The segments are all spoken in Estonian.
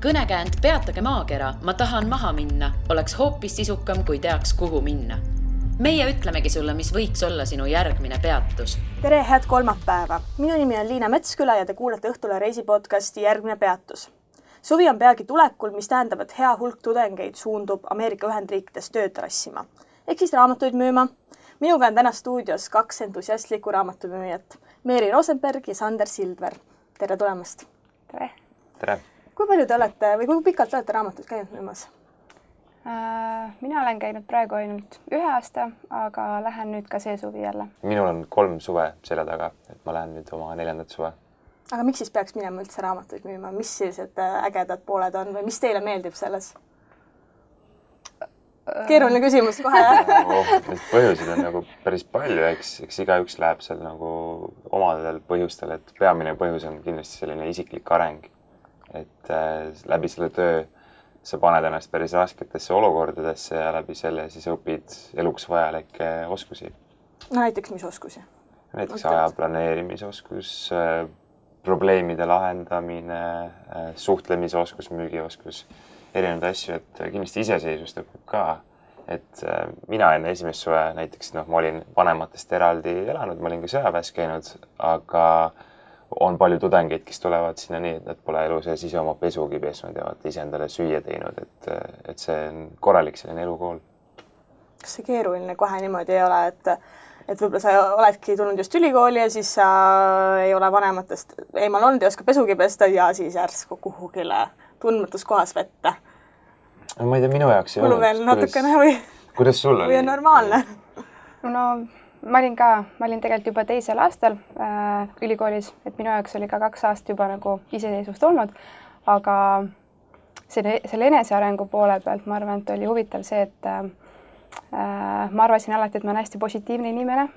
kõnekäänd Peatage maakera, ma tahan maha minna, oleks hoopis sisukam, kui teaks, kuhu minna. Meie ütlemegi sulle, mis võiks olla sinu järgmine peatus. Tere, head kolmapäeva! Minu nimi on Liina Metsküla ja te kuulete Õhtule reisipodcasti Järgmine peatus. Suvi on peagi tulekul, mis tähendab, et hea hulk tudengeid suundub Ameerika Ühendriikides tööd rassima. Ehk siis raamatuid müüma. Minuga on täna stuudios 2 entusiastlikku raamatumüüjat. Meeri Rosenberg ja Sander Sildver. Tere tulemast! Tere! Tere! Kui palju te olete või kui pikalt olete raamatuid käinud müümas? Mina olen käinud praegu ainult 1 aasta, aga lähen nüüd ka see suvi jälle. Minul on 3 suve selle taga, et ma lähen nüüd oma 4. suve. Aga miks siis peaks minema üldse raamatuid müüma? Mis sellised ägedad pooled on või mis teile meeldib selles? Keeruline küsimus kohe. Neid põhjuseid on nagu päris palju, eks igaüks läheb seal nagu omadel põhjustel, et peamine põhjus on kindlasti selline isiklik areng. Et läbi selle töö sa paned ennast päris rasketesse olukordadesse ja läbi selle siis õpid eluks vajalikke oskusi. No näiteks mis oskusi? Näiteks aja planeerimisoskus, probleemide lahendamine, suhtlemisoskus, müügioskus, erinevaid asju, et kindlasti iseseisvust õpib ka. Et mina enne esimest suve näiteks, ma olin vanematest eraldi elanud, ma olin ka sõjaväes käinud, aga on palju tudengeid, kes tulevad sinna nii, et nad pole elu sees ise oma pesugi pesnud ja ise endale süüa teinud, et see on korralik selline elukool. Kas see keeruline kohe niimoodi ei ole, et võib-olla sa oledki tulnud just ülikooli ja siis sa ei ole vanematest eemal olnud ja oska pesugi pesta ja siis järsku kuhugile tundmatus kohas vette? Ma ei tea, minu jaoks ei olnud. Veel natukene või? Kuidas sul oli? Või on normaalne? No ma olin tegelikult juba 2. aastal ülikoolis, et minu jaoks oli ka 2 aastat juba nagu iseseisvust olnud, aga selle enesearengu poole pealt ma arvan, et oli huvitav see, et ma arvasin alati, et ma olen hästi positiivne inimene,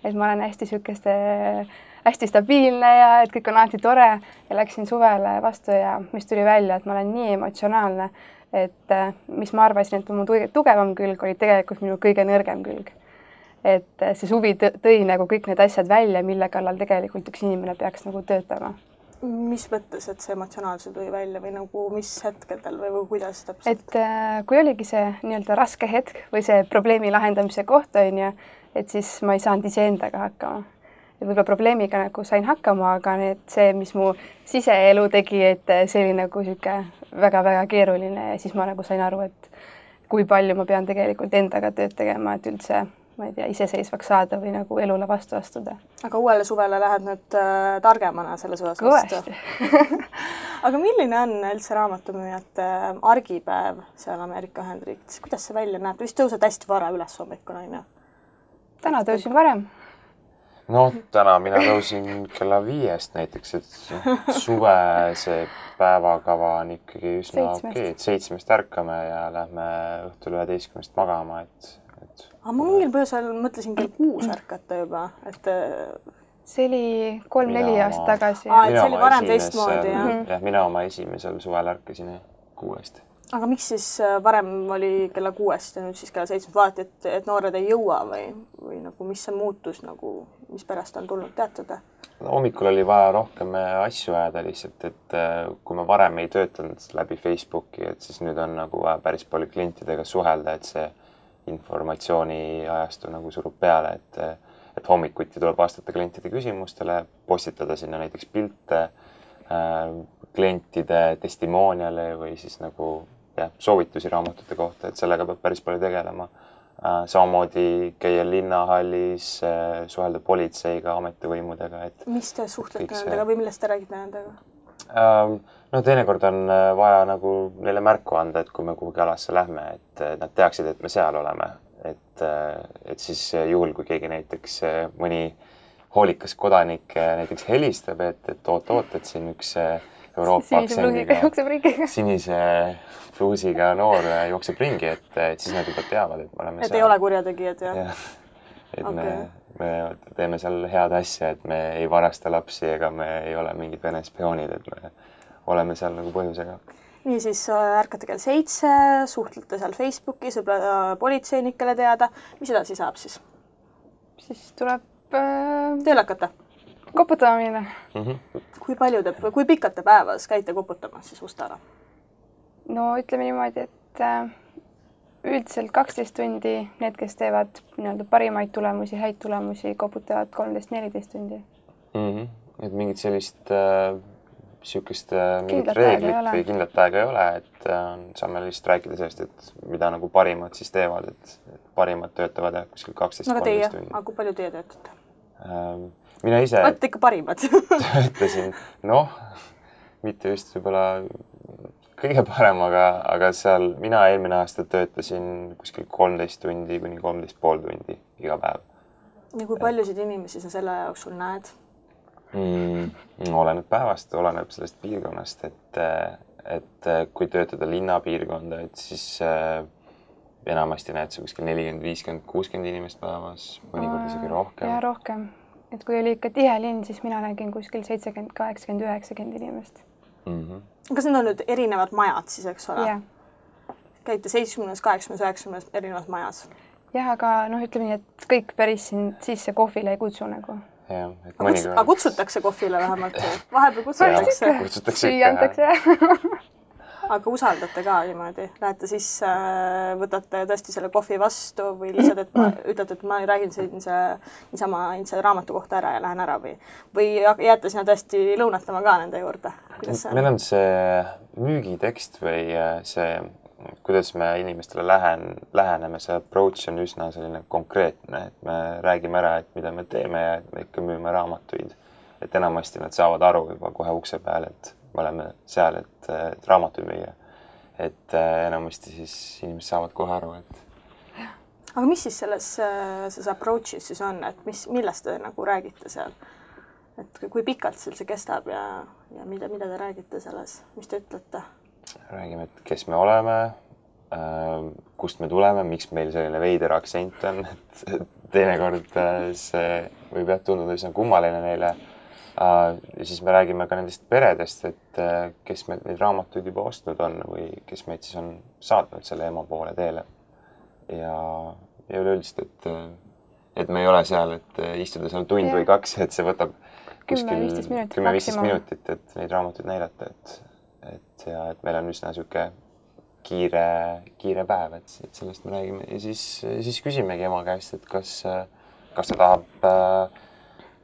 et ma olen hästi stabiilne ja et kõik on alati tore ja läksin suvele vastu ja mis tuli välja, et ma olen nii emotsionaalne, et mis ma arvasin, et mu tugevam külg oli tegelikult minu kõige nõrgem külg. Et see suvi tõi nagu kõik need asjad välja, mille kallal tegelikult üks inimene peaks nagu töötama. Mis mõttes, et see emotsionaalse tõi välja või nagu mis hetkedel või kuidas täpselt? Et kui oligi see nii-öelda raske hetk või see probleemi lahendamise koht on ju, et siis ma ei saanud iseendaga hakkama. Et võib-olla probleemiga nagu sain hakkama, aga see, mis mu siseelu tegi, et see oli nagu siuke väga-väga keeruline ja siis ma nagu sain aru, et kui palju ma pean tegelikult endaga tööd tegema, et üldse ma ei tea, iseseisvaks saada või nagu elule vastu astuda. Aga uuele suvele lähed nüüd targemana selles osas vastu? Aga milline on üldse raamatumüüjate argipäev seal Ameerika Ühendriikides? Kuidas see välja näeb? Vist tõused hästi vara üles hommikul, on ju? Täna tõusin varem. No täna mina tõusin kella 5 näiteks, et suve see päevakava on ikkagi üsna okei, et 7 ärkame ja lähme õhtul 11 magama, Aga ma mingil põhjusel mõtlesin kell 6 ärkata juba, et see oli 3-4 aastat tagasi. See oli varem teistmoodi, jah? Jah, mina oma esimesel suvel ärkasin 6. Aga miks siis varem oli kella 6 ja nüüd siis kella 7 vaati, et noored ei jõua või nagu mis see muutus, nagu, mis pärast on tulnud teatada? No, hommikul oli vaja rohkem asju ajada lihtsalt, et kui ma varem ei töötanud läbi Facebooki, et siis nüüd on nagu päris palju klientidega suhelda, et see informatsiooni ajastu nagu surub peale, et hommikuti tuleb vastata klientide küsimustele, postitada sinna näiteks pilte, klientide testimooniale või siis nagu soovitusi raamatute kohta, et sellega peab päris palju tegelema. Samamoodi käia linnahallis, suhelda politseiga, ametivõimudega. Mis te suhtlete nendega või millest te räägite nendega? No teinekord on vaja nagu neile märku anda, et kui me kuhugi alasse lähme, et nad teaksid, et me seal oleme. Et siis juhul, kui keegi näiteks mõni hoolikas kodanik näiteks helistab, et oot, et siin üks Euroopa aktsendiga, sinise fluusiga noor jookseb ringi, et siis nad juba teavad, et me oleme seal. Et ei ole kurjategijad, jah? Et me teeme seal head asja, et me ei varasta lapsi ega me ei ole mingid Vene spioonid, et me oleme seal nagu põhjusega. Nii siis ärkate kell 7, suhtlete seal Facebookis, võib-olla politseinikele teada. Mis edasi saab siis? Siis tuleb tööle hakata? Koputamine. Kui pikalt te päevas käite koputamas siis uste ära? no ütleme niimoodi, et üldiselt 12 tundi, need, kes teevad nii-öelda parimaid tulemusi, häid tulemusi, koputavad 13-14 tundi. Et mingit sellist sihukest mingit reeglit või kindlat aega ei ole, et saame lihtsalt rääkida sellest, et mida nagu parimad siis teevad, et parimad töötavad kuskil 12-13 tundi. Aga kui palju teie töötate? Mina ise olete ikka parimad. töötasin, mitte just võib-olla kõige parem, aga seal mina eelmine aasta töötasin kuskil 13 tundi kuni 13,5 tundi iga päev. Ja kui paljusid inimesi sa selle jooksul näed? Oleneb päevast, oleneb sellest piirkonnast, et kui töötada linnapiirkonda, et siis enamasti näed sa kuskil 40, 50, 60 inimest päevas, mõnikord isegi rohkem. Ja rohkem. Et kui oli ikka tihe linn, siis mina nägin kuskil 70, 80, 90 inimest. Kas need on nüüd erinevad majad siis, eks ole? Yeah. Käite 70, 80, 90 erinevas majas? Jah, aga ütleme nii, et kõik päris siin sisse kohvile ei kutsu nagu. Ja, aga kutsutakse kohvile vähemalt? Vahepeal kutsutakse? Kutsutakse ikka. Aga usaldate ka niimoodi? Lähete sisse, võtate tõesti selle kohvi vastu või lihtsalt, et ütlete, et ma räägin niisama raamatu kohta ära ja lähen ära või jääte sinna tõesti lõunatama ka nende juurde? Meil on see müügitekst või see, kuidas me inimestele läheneme, see approach on üsna selline konkreetne, et me räägime ära, et mida me teeme ja et me ikka müüme raamatuid. Et enamasti nad saavad aru juba kohe ukse peal, et me oleme seal, et raamatuid müüa. Et enamasti siis inimesed saavad kohe aru, et... Aga mis siis selles approach'is siis on, et millest te nagu räägite seal? Et kui pikalt see kestab ja mida te räägite selles, mis te ütlete? Räägime, et kes me oleme, kust me tuleme, miks meil selline veider aktsent on, et teinekord see võib tunduda üsna kummaline neile. Ja siis me räägime ka nendest peredest, et kes meil neid raamatuid juba ostnud on või kes meid siis on saatnud selle ema poole teele. Ja üleüldiselt, et me ei ole seal, et istuda seal tund või kaks, et see võtab kuskil 10-15 minutit, et neid raamatuid näidata, et meil on üsna siuke kiire päev, et sellest me räägime ja siis küsimegi ema käest, et kas ta tahab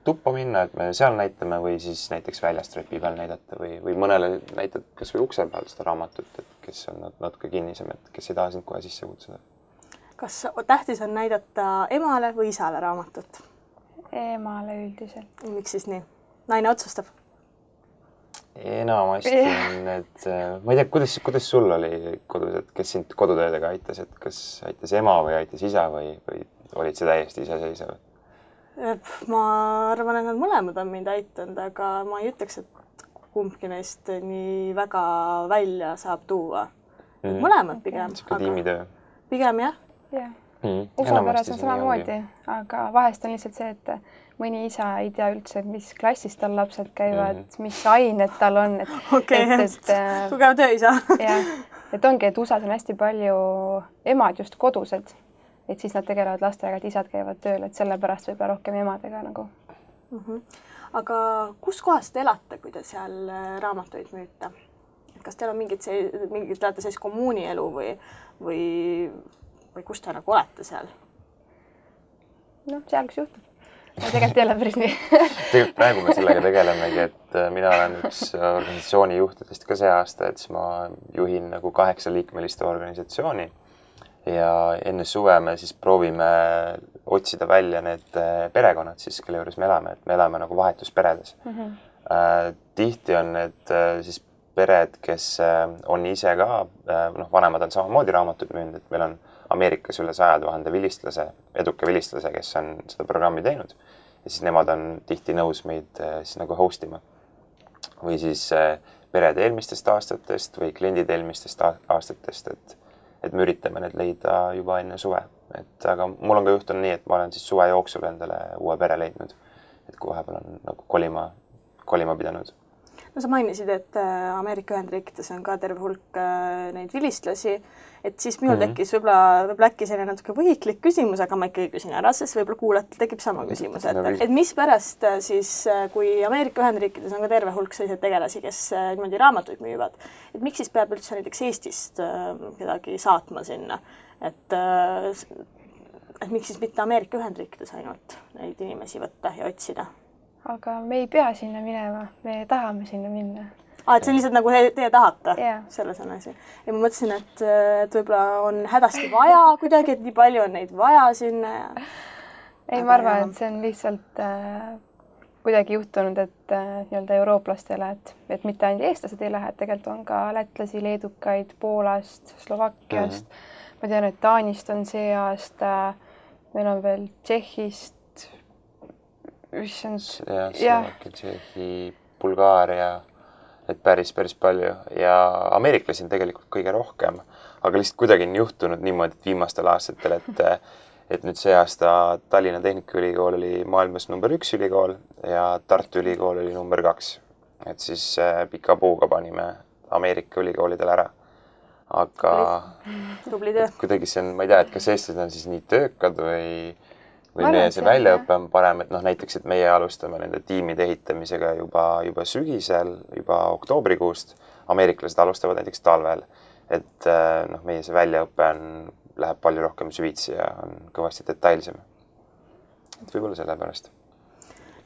tuppa minna, et me seal näitame või siis näiteks väljast trepi peal näidata või mõnele näitad kas või ukse peal seda raamatut, et kes on natuke kinnisem, et kes ei taha sind kohe sisse kutsuda. Kas tähtis on näidata emale või isale raamatut? Emale üldiselt. Miks siis nii? Naine otsustab? Enamasti on need, ma ei tea, kuidas sul oli kodus, et kes sind kodutöödega aitas, et kas aitas ema või aitas isa või olid see täiesti iseseisev? Ma arvan, et nad mõlemad on mind aitanud, aga ma ei ütleks, et kumbki neist nii väga välja saab tuua. Mõlemad pigem. Siuke tiimitöö. Pigem jah. Usapäras on samamoodi, aga vahest on lihtsalt see, et mõni isa ei tea üldse, mis klassis tal lapsed käivad, mis ained tal on. Tugev tööisa. Et ongi, et USA-s on hästi palju emad just kodused. Et siis nad tegelevad lastega, et isad käivad tööl, et sellepärast võib rohkem emadega nagu. Aga kus kohas te elate, kui te seal raamatuid müüte? Kas teil on mingid teate sellist kommuunielu või kus te nagu olete seal? Seal kus juhtub. Tegelikult ei ole päris nii. Tegelikult praegu me sellega tegelemegi, et mina olen üks organisatsiooni juhtidest ka see aasta, et siis ma juhin nagu 8-liikmelist organisatsiooni. Ja enne suve me siis proovime otsida välja need perekonnad siis, kelle juures me elame nagu vahetusperedes. Tihti on need siis pered, kes on ise ka, vanemad on samamoodi raamatuid müünud, et meil on Ameerikas üle 100 000 eduka vilistlase, kes on seda programmi teinud ja siis nemad on tihti nõus meid siis nagu hostima. Või siis pered eelmistest aastatest või kliendid eelmistest aastatest, et me üritame need leida juba enne suve. Aga mul on ka juhtunud nii, et ma olen siis suve jooksul endale uue pere leidnud, et kui vahepeal on nagu kolima pidanud. no sa mainisid, et Ameerika Ühendriikides on ka terve hulk neid vilistlasi, et siis minul tekkis võib-olla äkki selline natuke võhiklik küsimus, aga ma ikkagi küsin ära, sest võib-olla kuulajatel tekib sama küsimus, et mispärast siis, kui Ameerika Ühendriikides on ka terve hulk selliseid tegelasi, kes niimoodi raamatuid müüvad, et miks siis peab üldse näiteks Eestist kedagi saatma sinna, et miks siis mitte Ameerika Ühendriikides ainult neid inimesi võtta ja otsida? Aga me ei pea sinna minema, me tahame sinna minna. Et see on lihtsalt nagu teie tahate, selles on asi. Ja ma mõtlesin, et võib-olla on hädasti vaja kuidagi, et nii palju on neid vaja sinna. Ei, ma arvan, et see on lihtsalt kuidagi juhtunud, et nii-öelda eurooplastele, et mitte ainult eestlased ei lähe, et tegelikult on ka lätlasi, leedukaid, Poolast, Slovakkiast. Ma tean, et Taanist on see aasta, meil on veel Tšehhist, Slovakkia, Tšehhi, Bulgaaria, et päris palju ja ameeriklasi on tegelikult kõige rohkem, aga lihtsalt kuidagi on juhtunud niimoodi, et viimastel aastatel, et nüüd see aasta Tallinna Tehnikaülikool oli maailmas number 1 ülikool ja Tartu Ülikool oli number 2. Et siis pika puuga panime Ameerika ülikoolidel ära. Aga kuidagi see on, ma ei tea, et kas eestlased on siis nii töökad või meie see väljaõpe on parem, et näiteks, et meie alustame nende tiimide ehitamisega juba sügisel, juba oktoobrikuust. Ameeriklased alustavad näiteks talvel, et meie see väljaõpe läheb palju rohkem süvitsi ja on kõvasti detailsem. Et võib-olla selle pärast.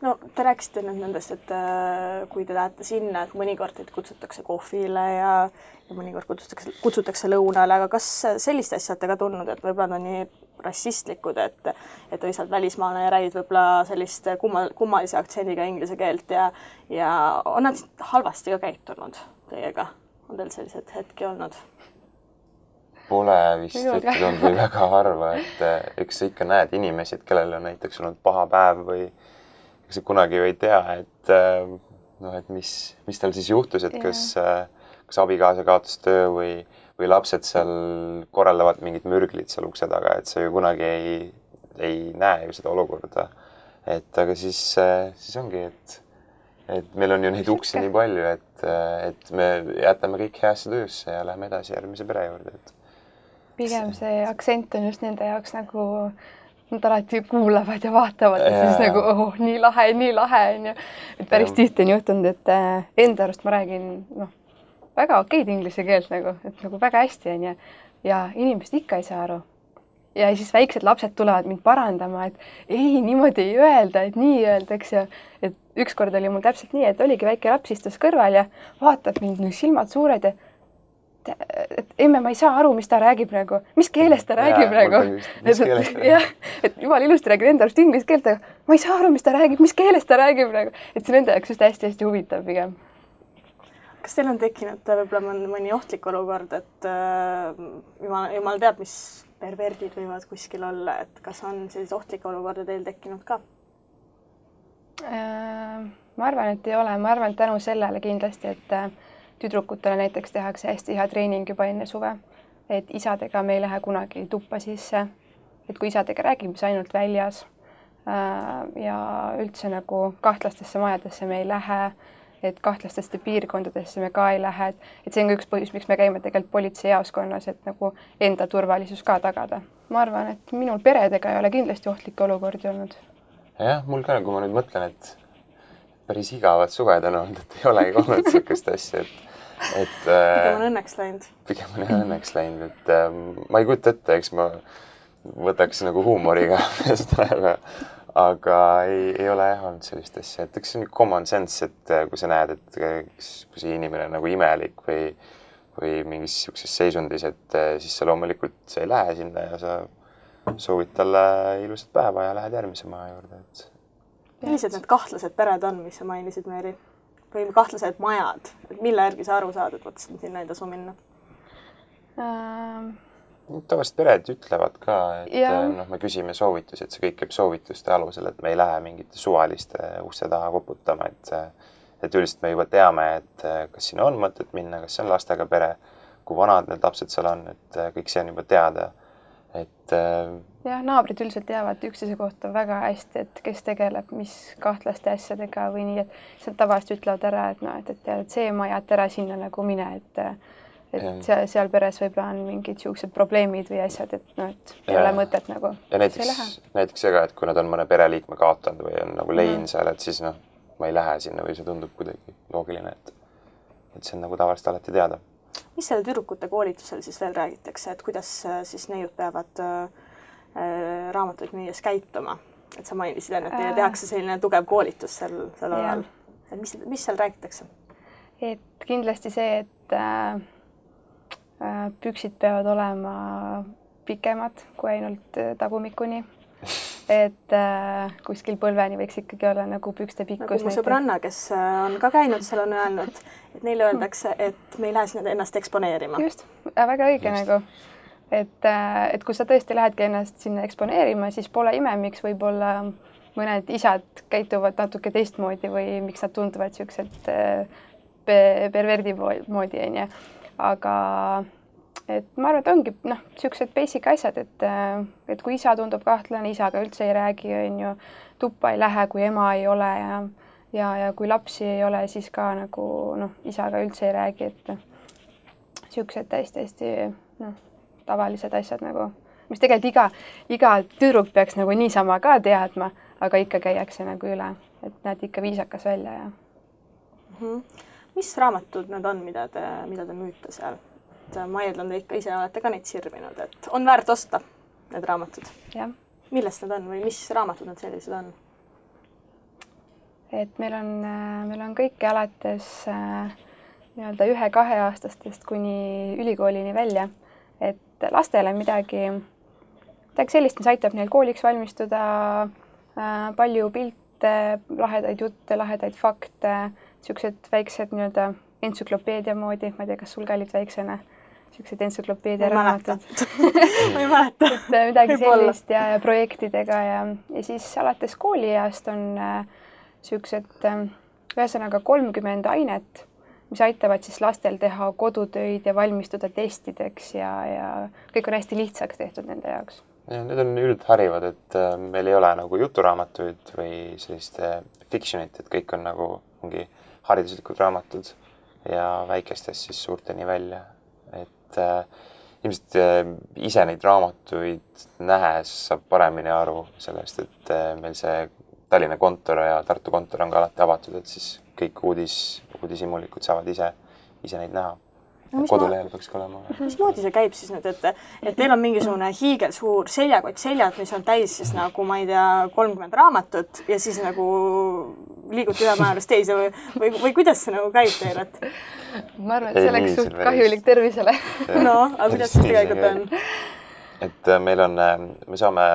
No te rääkisite nüüd nendest, et kui te lähete sinna, et mõnikord teid kutsutakse kohvile ja mõnikord kutsutakse lõunale, aga kas sellist asja olete ka tundnud, et võib-olla on nii rassistlikud, et lihtsalt välismaalane räägid võib-olla sellist kummalise aktsendiga inglise keelt ja on nad halvasti ka käitunud teiega? On teil sellised hetki olnud? Pole vist ütelnud või väga harva, et eks sa ikka näed inimesi, et kellel on näiteks olnud paha päev või sa kunagi ju ei tea, et mis tal siis juhtus, et kas abikaasa kaotas töö või lapsed seal korraldavad mingid mürglid seal ukse taga, et sa ju kunagi ei näe ju seda olukorda. Et aga siis ongi, et meil on ju neid uksi nii palju, et me jätame kõik heasse töösse ja läheme edasi järgmise pere juurde. Pigem see aktsent on just nende jaoks nagu nad alati kuulavad ja vaatavad ja siis nagu nii lahe on ju. Et päris tihti on juhtunud, et enda arust ma räägin väga okeid inglise keelt nagu, et nagu väga hästi on ja inimesed ikka ei saa aru. Ja siis väiksed lapsed tulevad mind parandama, et ei, niimoodi ei öelda, et nii öeldaks ja et ükskord oli mul täpselt nii, et oligi väike laps istus kõrval ja vaatab mind silmad suured ja et emme, ma ei saa aru, mis ta räägib praegu. Mis keeles ta räägib praegu? Et jumal ilusti räägib enda arust inglise keelt, aga ma ei saa aru, mis ta räägib, mis keeles ta räägib praegu. Et see nende jaoks just hästi huvitav pigem. Kas teil on tekkinud võib-olla mõni ohtlik olukord, et jumal teab, mis perverdid võivad kuskil olla, et kas on sellise ohtlikke olukorda teil tekkinud ka? Ma arvan, et ei ole. Ma arvan, et tänu sellele kindlasti, et tüdrukutele näiteks tehakse hästi hea treening juba enne suve, et isadega me ei lähe kunagi tuppa sisse, et kui isadega räägime, siis ainult väljas ja üldse nagu kahtlastesse majadesse me ei lähe, et kahtlastesse piirkondadesse me ka ei lähe, et see on ka üks põhjus, miks me käime tegelikult politseijaoskonnas, et nagu enda turvalisus ka tagada. Ma arvan, et minul peredega ei ole kindlasti ohtlikke olukordi olnud. Jah, mul ka, kui ma nüüd mõtlen, et päris igavad suved on olnud, et ei olegi olnud sellist asja, pigem on õnneks läinud. Pigem on õnneks läinud, et ma ei kujuta ette, eks ma võtaks nagu huumoriga seda, aga ei ole olnud sellist asja, et eks see on common sense, et kui sa näed, et kui see inimene on nagu imelik või mingis sellises seisundis, et siis sa loomulikult sa ei lähe sinna ja sa soovid talle ilusat päeva ja lähed järgmise maja juurde, et millised need kahtlased pered on, mis sa mainisid, Meeri? Või kahtlased majad? Et mille järgi sa aru saad, et võtsin sinna ei tasu minna? Tavaliselt pered ütlevad ka, et me küsime soovitusi, et see kõik käib soovituste alusel, et me ei lähe mingite suvaliste uste taha koputama, et üldiselt me juba teame, et kas sinna on mõtet minna, kas see on lastega pere, kui vanad need lapsed seal on, et kõik see on juba teada. et jah, naabrid üldiselt teavad üksteise kohta väga hästi, et kes tegeleb mis kahtlaste asjadega või nii, et nad tavaliselt ütlevad ära, et noh, et see maja, et ära sinna nagu mine, et seal peres võib-olla on mingid siuksed probleemid või asjad, et noh, et ei ole mõtet nagu. Ja näiteks see ka, et kui nad on mõne pereliikme kaotanud või on nagu lein seal, et siis noh, ma ei lähe sinna või see tundub kuidagi loogiline, et see on nagu tavaliselt alati teada. Mis selle tüdrukute koolitusel siis veel räägitakse, et kuidas siis neiud peavad raamatuid müües käituma? Et sa mainisid enne, et teile tehakse selline tugev koolitus sel alal. Et mis seal räägitakse? Et kindlasti see, et püksid peavad olema pikemad kui ainult tagumikuni. Et kuskil põlveni võiks ikkagi olla nagu pükste pikkus. Nagu mu sõbranna, kes on ka käinud, seal on öelnud, et neile öeldakse, et me ei lähe sinna ennast eksponeerima. Just, väga õige nagu. Et kui sa tõesti lähedki ennast sinna eksponeerima, siis pole ime, miks võib-olla mõned isad käituvad natuke teistmoodi või miks nad tunduvad siuksed perverdi moodi, onju. Aga et ma arvan, et ongi siuksed basic asjad, et kui isa tundub kahtlane, isaga üldse ei räägi, onju, tuppa ei lähe, kui ema ei ole ja kui lapsi ei ole, siis ka nagu isaga üldse ei räägi, et siuksed täiesti tavalised asjad nagu, mis tegelikult iga tüdruk peaks nagu niisama ka teadma, aga ikka käiakse nagu üle, et näed ikka viisakas välja ja. Mis raamatud need on, mida te müüte seal? Ma eeldan, te ikka ise olete ka neid sirvinud, et on väärt osta need raamatud. Ja. Millest need on või mis raamatud need sellised on? Et meil on kõike alates nii-öelda 1-2 aastastest kuni ülikoolini välja, et lastele midagi sellist, mis aitab neil kooliks valmistuda, palju pilte, lahedaid jutte, lahedaid fakte, siuksed väiksed nii-öelda entsüklopeedia moodi, ma ei tea, kas sul ka olid väiksena siuksed entsüklopeedia raamatud. Ma ei mäleta. Midagi sellist ja projektidega ja siis alates koolieast on siuksed ühesõnaga 30 ainet, mis aitavad siis lastel teha kodutöid ja valmistuda testideks ja kõik on hästi lihtsaks tehtud nende jaoks. Ja, need on üldharivad, et meil ei ole nagu juturaamatuid või sellist fictionit, et kõik on nagu mingi hariduslikud raamatud ja väikestest siis suurteni välja. Et ilmselt ise neid raamatuid nähes saab paremini aru sellest, et meil see Tallinna kontor ja Tartu kontor on ka alati avatud, et siis kõik uudishimulikud saavad ise neid näha. Kodulehel peaks ka olema. Mismoodi see käib siis nüüd, et teil on mingisugune hiigelsuur seljakott seljad, mis on täis siis nagu, ma ei tea, 30 raamatut ja siis nagu liigute ühe määrust teise või kuidas see nagu käib teil, et? Ma arvan, et see oleks suht kahjulik tervisele. No, aga kuidas see tegelikult on? Et me saame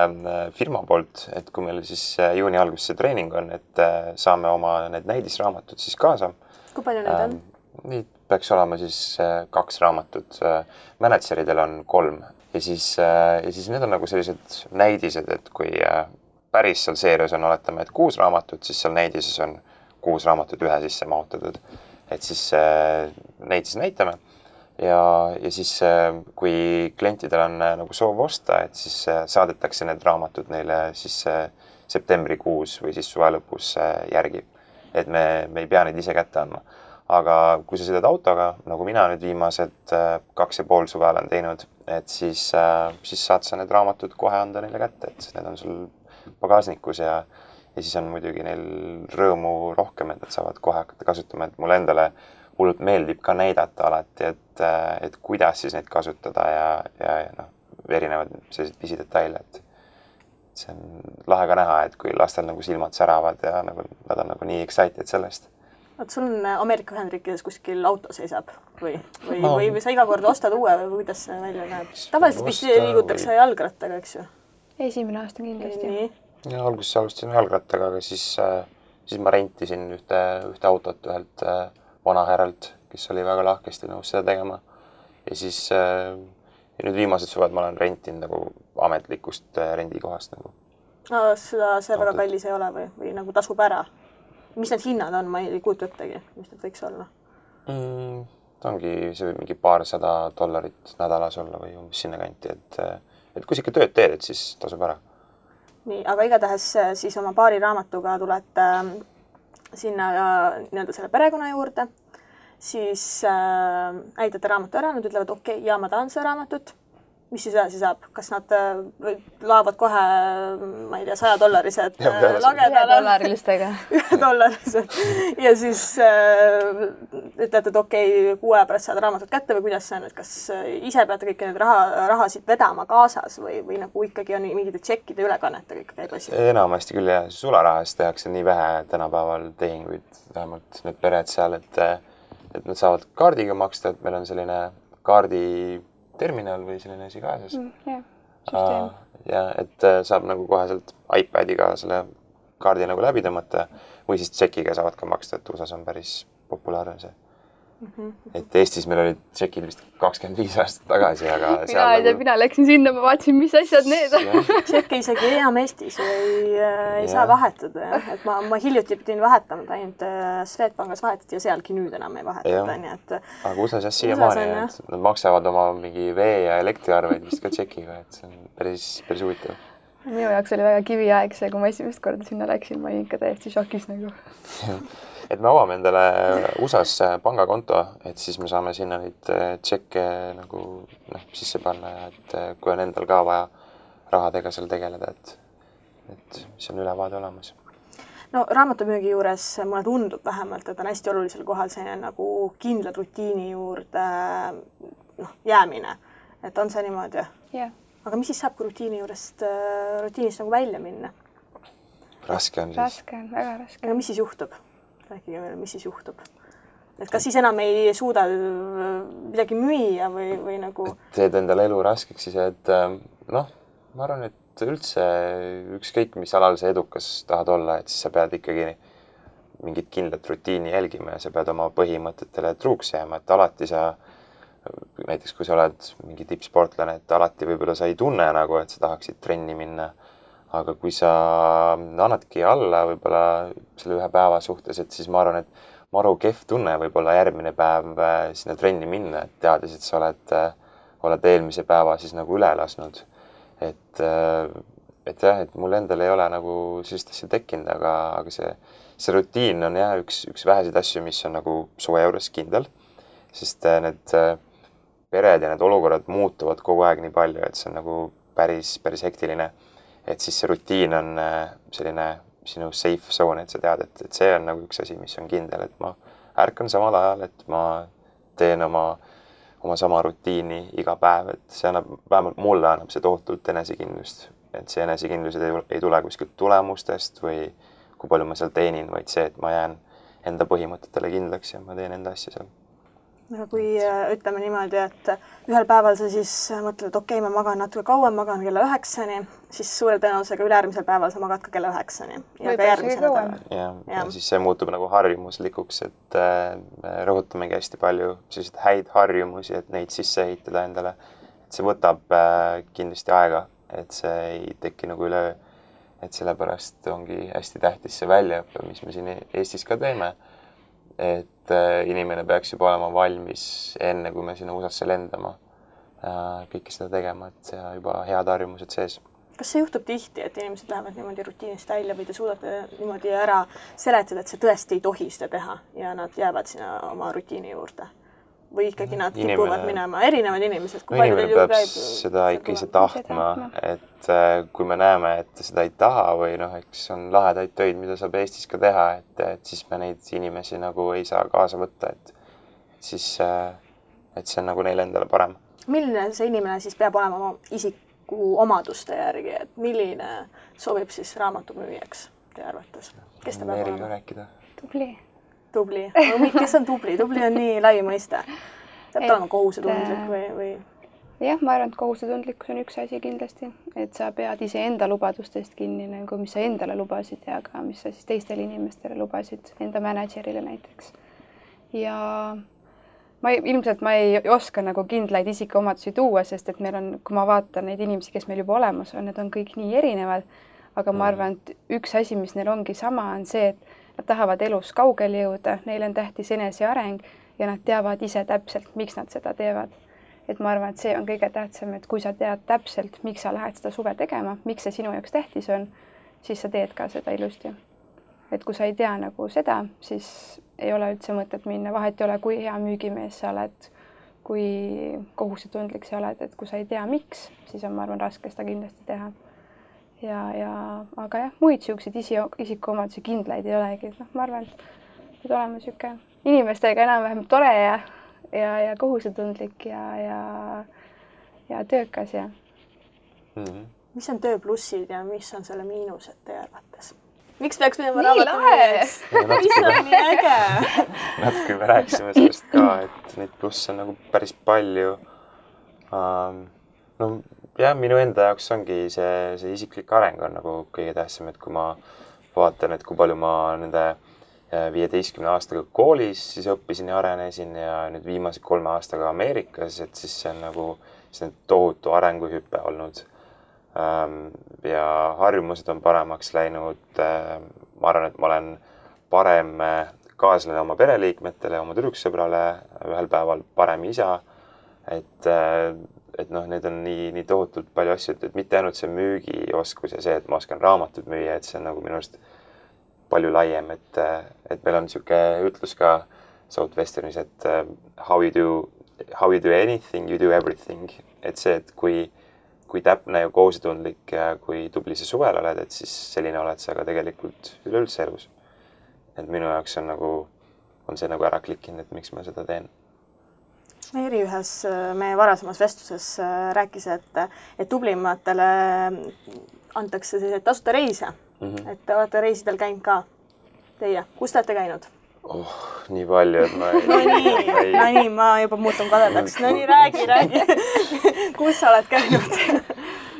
firma poolt, et kui meil siis juuni alguses see treening on, et saame oma need näidisraamatud siis kaasa. Kui palju need on? Neid peaks olema siis 2 raamatut. Manageridel on 3 ja siis need on nagu sellised näidised, et kui päris seal seerias on, oletame, et 6 raamatut, siis seal näidises on 6 raamatut ühe sisse mahutatud. Et siis neid siis näitame ja siis kui klientidel on nagu soov osta, et siis saadetakse need raamatud neile siis septembrikuus või siis suve lõpus järgi. Et me ei pea neid ise kätte andma. Aga kui sa sõidad autoga, nagu mina nüüd viimased 2,5 suve olen teinud, et siis saad sa need raamatud kohe anda neile kätte, et need on sul pagasnikus ja siis on muidugi neil rõõmu rohkem, et nad saavad kohe hakata kasutama, et mulle endale hullult meeldib ka näidata alati, et kuidas siis neid kasutada ja erinevad sellised pisidetaile, et see on lahe ka näha, et kui lastel nagu silmad säravad ja nagu, nad on nagu nii excited sellest. Oot, sul on Ameerika Ühendriikides kuskil auto seisab või sa iga kord ostad uue või kuidas see välja näeb? Tavaliselt vist liigutakse jalgrattaga, eks ju? Esimene aasta kindlasti. Ja alguses alustasin jalgrattaga, aga siis ma rentisin ühte autot ühelt vanahärralt, kes oli väga lahkesti nõus seda tegema. Ja siis ja nüüd viimased suved ma olen rentinud nagu ametlikust rendikohast. Nagu. See väga kallis ei ole või nagu tasub ära? Mis need hinnad on? Ma ei kuutu üttegi, mis need võiks olla? Ta ongi see mingi $200 nädalas olla või umbes sinna kanti, et et kui sa ikka tööd teed, et siis tasub ära. nii, aga igatahes siis oma paari raamatuga tulete sinna nii-öelda selle perekonna juurde, siis näitate raamatu ära, nad ütlevad okei, ja ma tahan seda raamatut. Mis siis edasi saab? Kas nad laavad kohe, ma ei tea, $100 lagedale? $1 ja siis ütlete, et okei, 6 aja pärast saad raamatut kätte või kuidas see on, et kas ise peate kõiki need rahasid vedama kaasas või nagu ikkagi on mingite tšekkide ülekannetega ikka käib asi? Enamasti küll jah, sularahas tehakse nii vähe tänapäeval tehinguid, vähemalt need pered seal, et nad saavad kaardiga maksta, et meil on selline kaarditerminal või selline asi kaasas. Süsteem. Ja et saab nagu kohe sealt iPadiga selle kaardi nagu läbi tõmmata või siis tšekiga saavad ka maksta, et USAs on päris populaarne see. Et Eestis meil olid tšekid vist 25 aastat tagasi, aga mina läksin sinna, ma vaatasin, mis asjad need on. Tšekki isegi enam Eestis ei saa vahetada. Et ma hiljuti pidin vahetama, ainult Swedbankis vahetati ja sealgi nüüd enam ei vahetada. Nii, et aga USAs jah siiamaani, et nad maksavad oma mingi vee- ja elektriarveid vist ka tšekiga, et see on päris huvitav. Minu jaoks oli väga kiviaeg see, kui ma esimest korda sinna läksin, ma olin ikka täiesti šokis nagu. Et me avame endale USAs pangakonto, et siis me saame sinna neid tšekke nagu sisse panna ja et kui on endal ka vaja rahadega seal tegeleda, et mis on ülevaade olemas. No raamatumüügi juures mulle tundub vähemalt, et on hästi olulisel kohal selline nagu kindla rutiini juurde jäämine. Et on see niimoodi? Jah. Aga mis siis saab, kui rutiinist nagu välja minna? Raske on siis. Raske on, väga raske. Aga mis siis juhtub? Rääkige meile, mis siis juhtub? Et kas siis enam ei suuda midagi müüa või nagu... Teed endale elu raskeks siis, et ma arvan, et üldse ükskõik, mis alal sa edukas tahad olla, et siis sa pead ikkagi mingit kindlat rutiini jälgima ja sa pead oma põhimõtetele truuks jääma, et alati sa näiteks kui sa oled mingi tippsportlane, et alati võib-olla sa ei tunne nagu, et sa tahaksid trenni minna. Aga kui sa annadki alla võib-olla selle ühe päeva suhtes, et siis ma arvan, et maru kehv tunne võib-olla järgmine päev sinna trenni minna, et teades, et sa oled eelmise päeva siis nagu üle lasnud. Et jah, et mul endal ei ole nagu sellist asja tekkinud, aga see rutiin on jah üks väheseid asju, mis on nagu su juures kindel, sest need pered ja need olukorrad muutuvad kogu aeg nii palju, et see on nagu päris hektiline. Et siis see rutiin on selline sinu safe zone, et sa tead, et see on nagu üks asi, mis on kindel, et ma ärkan samal ajal, et ma teen oma sama rutiini iga päev, et see annab, vähemalt mulle annab see tohutult enesekindlust. Et see enesekindlused ei tule kuskilt tulemustest või kui palju ma seal teenin, vaid see, et ma jään enda põhimõtetele kindlaks ja ma teen enda asja seal. Aga kui ütleme niimoodi, et ühel päeval sa siis mõtled, et okei, ma magan natuke kauem, magan kella 9-ni, siis suure tõenäosusega üleärmisel päeval sa magad ka kella 9-ni. Ja ka järgmise nädala. Ja siis see muutub nagu harjumuslikuks, et rõhutamegi hästi palju selliseid häid harjumusi, et neid sisse ehitada endale. Et see võtab kindlasti aega, et see ei teki nagu üle, et sellepärast ongi hästi tähtis see väljaõppe, mis me siin Eestis ka teeme. Et inimene peaks juba olema valmis enne, kui me sinna USAsse lendama kõike seda tegema, et see juba head harjumused sees. Kas see juhtub tihti, et inimesed lähevad niimoodi rutiinist välja või te suudate niimoodi ära seletada, et see tõesti ei tohi seda teha ja nad jäävad sinna oma rutiini juurde? Või ikkagi nad kipuvad minema erinevad inimesed? Inimene peab seda ikka ise tahtma, et kui me näeme, et seda ei taha või eks on lahedaid töid, mida saab Eestis ka teha, et siis me neid inimesi nagu ei saa kaasa võtta, et siis et see on nagu neile endale parem. Milline see inimene siis peab olema oma isiku omaduste järgi, et milline sobib siis raamatumüüjaks teie arvates? Kes ta peab olema? Tubli. Kes on tubli? Tubli on nii lai mõiste. Peab olema kohusetundlik või? Jah, ma arvan, et kohusetundlikkus on üks asi kindlasti, et sa pead ise enda lubadustest kinni, nagu mis sa endale lubasid ja ka mis sa siis teistele inimestele lubasid, enda managerile näiteks. Ja ilmselt ma ei oska nagu kindlaid isikuomadusi tuua, sest et meil on, kui ma vaatan neid inimesi, kes meil juba olemas on, need on kõik nii erinevad, aga ma arvan, et üks asi, mis neil ongi sama, on see, et nad tahavad elus kaugele jõuda, neil on tähtis eneseareng ja nad teavad ise täpselt, miks nad seda teevad. et ma arvan, et see on kõige tähtsam, et kui sa tead täpselt, miks sa lähed seda suve tegema, miks see sinu jaoks tähtis on, siis sa teed ka seda ilusti. Et kui sa ei tea nagu seda, siis ei ole üldse mõtet minna, vahet ei ole, kui hea müügimees sa oled, kui kohusetundlik sa oled, et kui sa ei tea, miks, siis on, ma arvan, raske seda kindlasti teha. Aga jah, muid siukseid isikuomadusi kindlaid ei olegi. Ma arvan, et olema siuke inimestega enam-vähem tore ja kohusetundlik ja töökas ja. Mis on töö plussid ja mis on selle miinused teie arvates? Miks peaks minema raamatumüüjaks? Mis on nii äge? Natuke me rääkisime sellest ka, et neid plusse on nagu päris palju. No jah, minu enda jaoks ongi see isiklik areng on nagu kõige tähtsam, et kui ma vaatan, et kui palju ma nende 15 aastaga koolis siis õppisin ja arenesin ja nüüd viimase 3 aastaga Ameerikas, et siis see on nagu tohutu arenguhüpe olnud. Ja harjumused on paremaks läinud. Ma arvan, et ma olen parem kaaslane oma pereliikmetele, oma tüdruksõbrale, ühel päeval parem isa. Et need on nii tohutult palju asju, et mitte ainult see müügioskus ja see, et ma oskan raamatut müüa, et see on nagu minu arust palju laiem, et meil on niisugune ütlus ka Southwesternis, et how you do anything, you do everything. Et see, et kui täpne ja kohusetundlik ja kui tubli sa suvel oled, et siis selline oled sa ka tegelikult üleüldse elus. Et minu jaoks on see nagu ära klikkinud, et miks ma seda teen. Meeri ühes meie varasemas vestluses rääkis, et tublimatele antakse selliseid tasuta reise. Et te olete reisidel käinud ka teie. Kus te olete käinud? Nii palju, et ma No nii, ma juba muutun kadedaks. No nii, räägi. Kus sa oled käinud?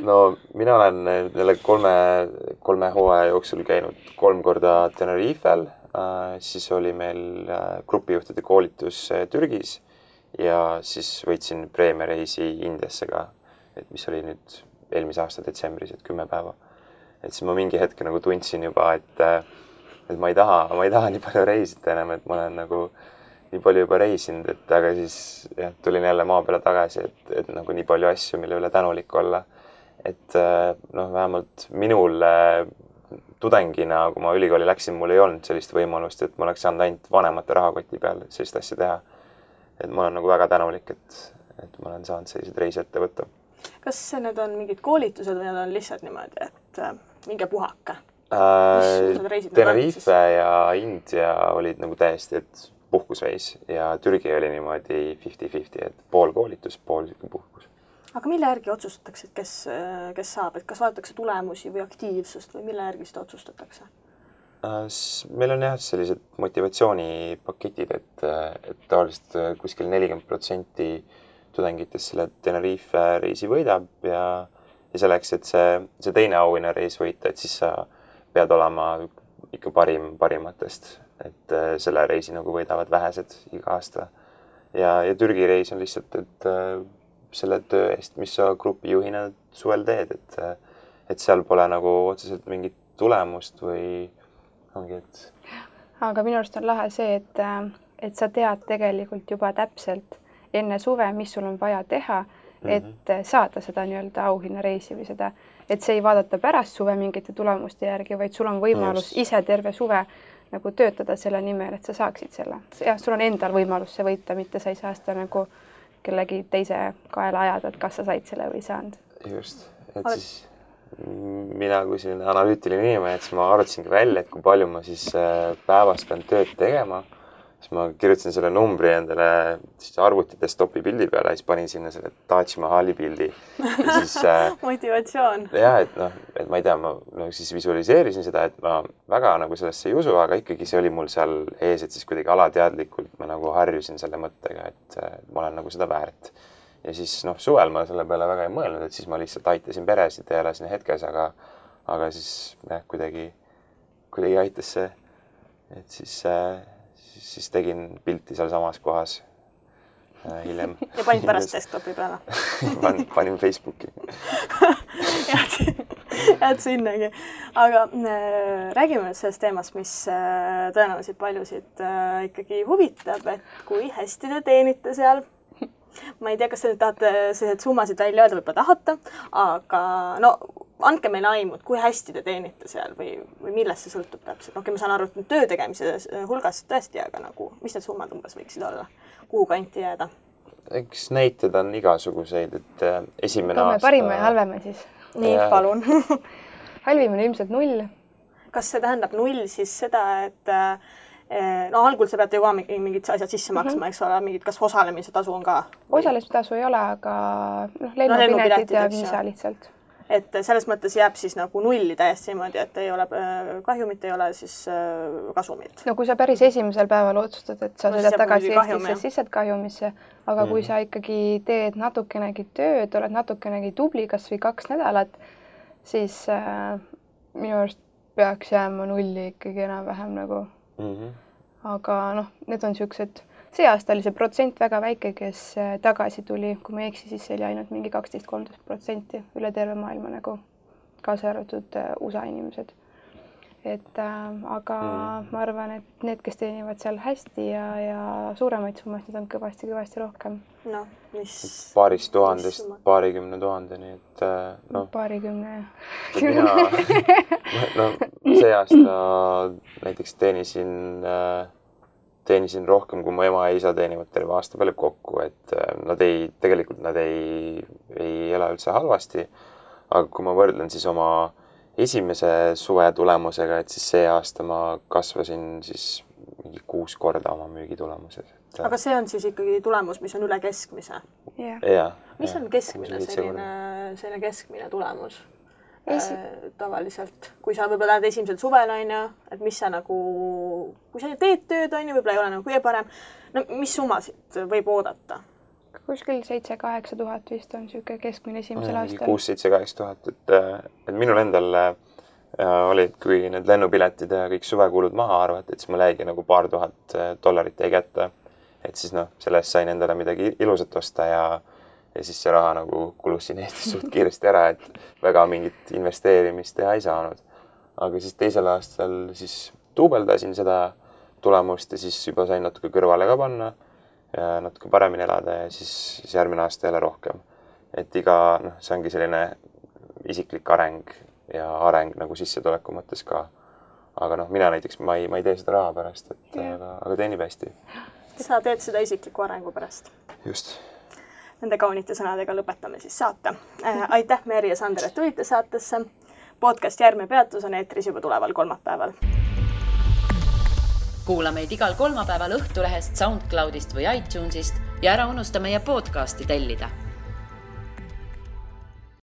No mina olen neile 3 hooaja jooksul käinud 3 korda Tenerifel. Siis oli meil grupijuhtide koolitus Türgis ja siis võitsin preemiareisi Indiasse ka, et mis oli nüüd eelmise aasta detsembris, et 10 päeva. Et siis ma mingi hetke nagu tundsin juba, et ma ei taha nii palju reisida enam, et ma olen nagu nii palju juba reisinud, et aga siis tulin jälle maa peale tagasi, et nagu nii palju asju, mille üle tänulik olla. Et vähemalt minul tudengina, kui ma ülikooli läksin, mul ei olnud sellist võimalust, et ma oleks saanud ainult vanemate rahakoti peal sellist asja teha. Et ma olen nagu väga tänulik, et ma olen saanud sellised reisi ette võtta. Kas need on mingid koolitused või need on lihtsalt niimoodi, et minge puhake? Tenerife ja India olid nagu täiesti, et puhkusreis ja Türgi oli niimoodi 50-50, et pool koolitus, pool puhkus. Aga mille järgi otsustatakse, et kes saab? Et kas vaadatakse tulemusi või aktiivsust või mille järgi seda otsustatakse? Meil on jah sellised motivatsioonipaketid, et tavaliselt kuskil 40% tudengitest selle Tenerife reisi võidab ja selleks, et see teine auhinnareis võita, et siis sa pead olema ikka parimatest, et selle reisi nagu võidavad vähesed iga aasta. Ja Türgi reis on lihtsalt, et selle töö eest, mis sa grupijuhina suvel teed, et seal pole nagu otseselt mingit tulemust või ongi, et... Aga minu arust on lahe see, et sa tead tegelikult juba täpselt enne suve, mis sul on vaja teha, et saada seda nii-öelda auhinnareisi või seda, et see ei vaadata pärast suve mingite tulemuste järgi, vaid sul on võimalus ise terve suve nagu töötada selle nimel, et sa saaksid selle. Ja sul on endal võimalus see võita, mitte sa ei saa seda nagu kellegi teise kaela ajada, et kas sa said selle või saanud. Just, et siis mina kui selline analüütiline inimene, et siis ma arvutasingi välja, et kui palju ma siis päevas pean tööd tegema, siis ma kirjutasin selle numbri endale arvuti desktopi pildi peale ja siis panin sinna selle Taj Mahali pildi. Ja siis, motivatsioon. Jah, et ma ei tea, ma siis visualiseerisin seda, et ma väga nagu sellesse ei usu, aga ikkagi see oli mul seal ees, et siis kuidagi alateadlikult ma nagu harjusin selle mõttega, et ma olen nagu seda väärt. Ja siis suvel ma selle peale väga ei mõelnud, et siis ma lihtsalt aitasin peresid ja elasin hetkes, aga siis kuidagi aitas see, et siis tegin pilti seal samas kohas hiljem. Ja panid pärast desktopi peale? Panin Facebooki. Jääd sinnagi. Aga räägime nüüd sellest teemast, mis tõenäoliselt paljusid ikkagi huvitab, et kui hästi te teenite seal. ma ei tea, kas te nüüd tahate sellised summasid välja öelda, võib-olla tahate, aga no andke meile aimu, kui hästi te teenite seal või millest see sõltub täpselt. Okei, ma saan aru, et töö tegemise hulgas tõesti, aga nagu, mis need summad umbes võiksid olla? Kuhu kanti jääda? Eks näited on igasuguseid, et esimene aasta... Parima ja halvema siis. Nii, palun. Halvim on ilmselt 0. Kas see tähendab 0 siis seda, et no algul sa peate ju ka mingid asjad sisse maksma, eks ole, mingid, kas osalemise tasu on ka? Osalemise tasu ei ole, aga lennupiletid ja viisa lihtsalt. Et selles mõttes jääb siis nagu 0 täiesti niimoodi, et ei ole kahjumit, ei ole siis kasumit. No kui sa päris esimesel päeval otsustad, et sa sõidad tagasi Eestisse, siis saad kahjumisse, aga kui sa ikkagi teed natukenegi tööd, oled natukenegi tubli, kas või 2 nädalat, siis minu arust peaks jääma 0 ikkagi enam-vähem nagu. Aga noh, need on siuksed, see aasta oli see protsent väga väike, kes tagasi tuli, kui me eksi, siis see oli ainult mingi 12-13% üle terve maailma nagu kaasa arvatud USA inimesed. Aga ma arvan, et need, kes teenivad seal hästi ja suuremaid summasid, need on kõvasti rohkem. No, mis... Paarist tuhandest, paarikümne tuhandeni, et noh... Paarikümne... No, see aasta näiteks teenisin rohkem, kui mu ema ja isa teenivad terve aasta peale kokku, et tegelikult nad ei ela üldse halvasti, aga kui ma võrdlen siis oma esimese suve tulemusega, et siis see aasta ma kasvasin siis mingi 6 korda oma müügitulemuses. Aga see on siis ikkagi tulemus, mis on üle keskmise? Mis on keskmine selline keskmine tulemus? Tavaliselt, kui sa võib-olla lähed esimesel suvel, et mis sa nagu, kui sa teed tööd, võib-olla ei ole nagu kõige parem, no mis summasid võib oodata? Kuskil 7-8 tuhat vist on siuke keskmine esimesel aastal. 6-7-8 tuhat, et minul endal olid, kui need lennupiletid ja kõik suvekulud maha arvati, et siis mul jäigi nagu paar tuhat dollarit jäi kätte. Et siis sellest sain endale midagi ilusat osta ja siis see raha nagu kulus siin Eestis suht kiiresti ära, et väga mingit investeerimist teha ei saanud. Aga siis teisel aastal siis duubeldasin seda tulemust ja siis juba sain natuke kõrvale ka panna ja natuke paremini elada ja siis järgmine aasta jälle rohkem. Et see ongi selline isiklik areng ja areng nagu sissetuleku mõttes ka. Aga mina näiteks, ma ei tee seda raha pärast, aga teenib hästi. Sa teed seda isikliku arengu pärast. Just. Nende kaunite sõnadega lõpetame siis saate. Aitäh, Meri ja Sander, et tulite saatesse. Podcast Järgmine peatus on eetris juba tuleval kolmapäeval. Kuula meid igal kolmapäeval Õhtulehest, SoundCloudist või iTunesist ja ära unusta meie podcasti tellida.